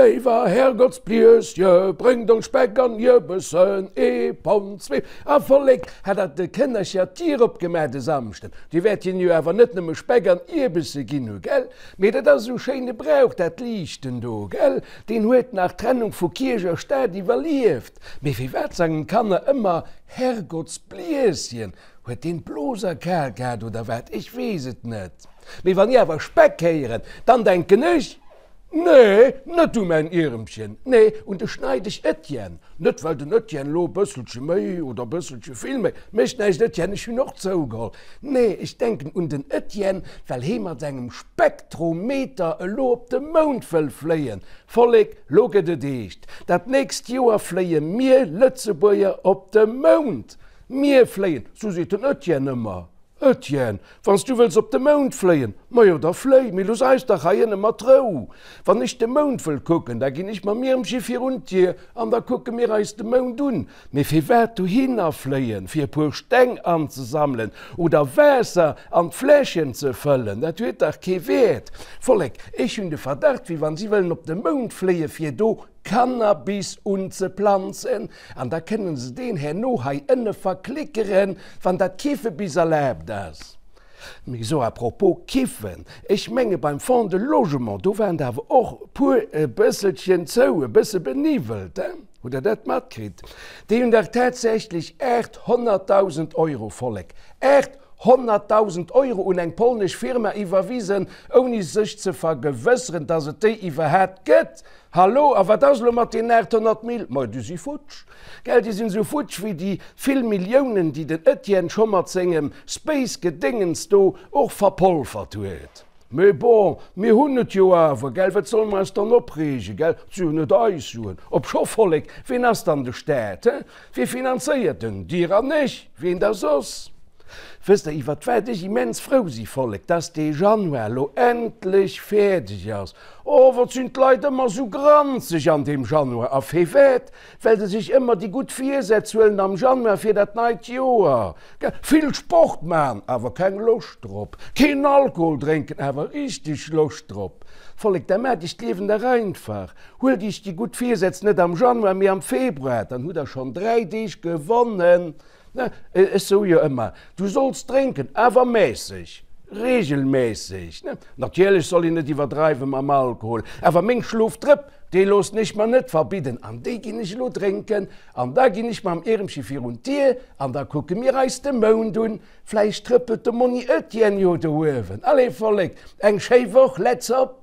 Léiwer Herrgottsbliesje, bréngt ons Speck an Ierbessen, ee Pond, zwee. A Vollek, hat der de Kënnercher d'Dier opgemaach de Samschden? Dir wäert hinnen jo awer net nëmme Speck an Ierbesse ginn hu, gell? Mee dat ass esou schéine Brauch, dat Liichten do, gell? Deen huet nach d'Trennung vu Kierch a Staat iwwerlieft. Mee firwat sangen d'Kanner ëmmer Herrgottsbliesjen? Huet deen d'Blos kal gehat oder wat? Ech weess et net. Mee wann ech awer Speck héieren, dann denken ech, Nee, net u mäin Ieremchen, nee, un de Schneideg Etienne. Net well den Etienne elo e bësselche méi oder e bësselche vill méi, mécht näischt Etienne, ech hunn och zougeholl. Nee, ech denken un den Etienne, well hee mat sengem Spektrometer elo op de Mound wëll fléien. Vollek, lo gëtt et eescht, dat nächst Joer fléie mir Lëtzebuerger op de Mound! Mir fléien, sou seet den Etienne ëmmer. Etienne, wann s du wëlls op de Mound fléien, majo da fléi, mee looss eis dach hei ënne mat Rou. Wann ech de Mound wëll kucken, da ginn ech mam Iermche virun d'Dier an da kucke mir eis de Mound un. Mee firwat dohinner fléien, fir e puer Steng anzesammelen oder Waasser an d'Fläschen ze fëllen, dat huet dach kee Wäert. Vollek, ech hunn de Verdacht, wéi wann si wëllen op de Mound fléie fir do Cannabis unzeplanzen an da kënnen se deen herno hei ënne verklickeren, wann dat Kiffe bis erlaabt ass. Mee so à propos Kiffen, ech menge beim Fonds de Logement, do waren der awer och puer e bësselchen zou, e bësse beniwwelt, hein? Hutt Der dat matkritt? Déi hunn dach tatsächlech 800.000 Euro, Vollek, 800.000 Euro un eng polnesch Firma iwwerwisen, ouni sech ze vergewësseren, dass et déi iwwerhaapt gëtt. Hallo, a wat ass elo mat deenen 800 Mil? Ma déi si futsch, gell? Déi sinn esou futsch wéi déi vill Milliounen, déi den Etienne scho mat sengem Space-Gedéngens do och verpolfert huet. Mee bon, mir hunn et jo awer, gell? Wat solle mer eis dann opreegen, gell? Et si jo net eis Suen. Obscho, Vollek, ween ass dann de Staat, he? Wie finanzéiert en? Dir an ech, ween da soss? Wësst der iwwert wat ech immens frou si, Vollek? Dass dee Januar lo endlech fäerdeg ass. Oh, wat sinn d'Leit ëmmer sou granzeg an deem Januar. A firwat? Well se sech ëmmer déi gutt Virsätz huelen am Januar fir dat neit Joer. Vill Sport man, awer keng Loscht drop. Keen Alkohol drénken, awer richteg Loscht drop. Vollek, da maacht iech d'Liewen dach einfach. Huelt iech déi gutt Virsätz net am Januar, mee am Februar, dann hutt der schonn 3 Deeg gewonnen. Ne, ech soe jo ëmmer, du solls drénken, awer mässeg, regelmässeg. Ne, natierlech soll een net iwwerdreiwe mam Alkohol, awer meng Schlofdrëpp, déi loossen ech mer net verbidden an déi ginn ech elo drénken an da ginn ech mam Iermche virun d'Dier an da kucke mir eis de Mound un. Vläicht trëppelt de Monni Etienne jo do uewen. Allez Vollek, eng schéi Woch, let's op!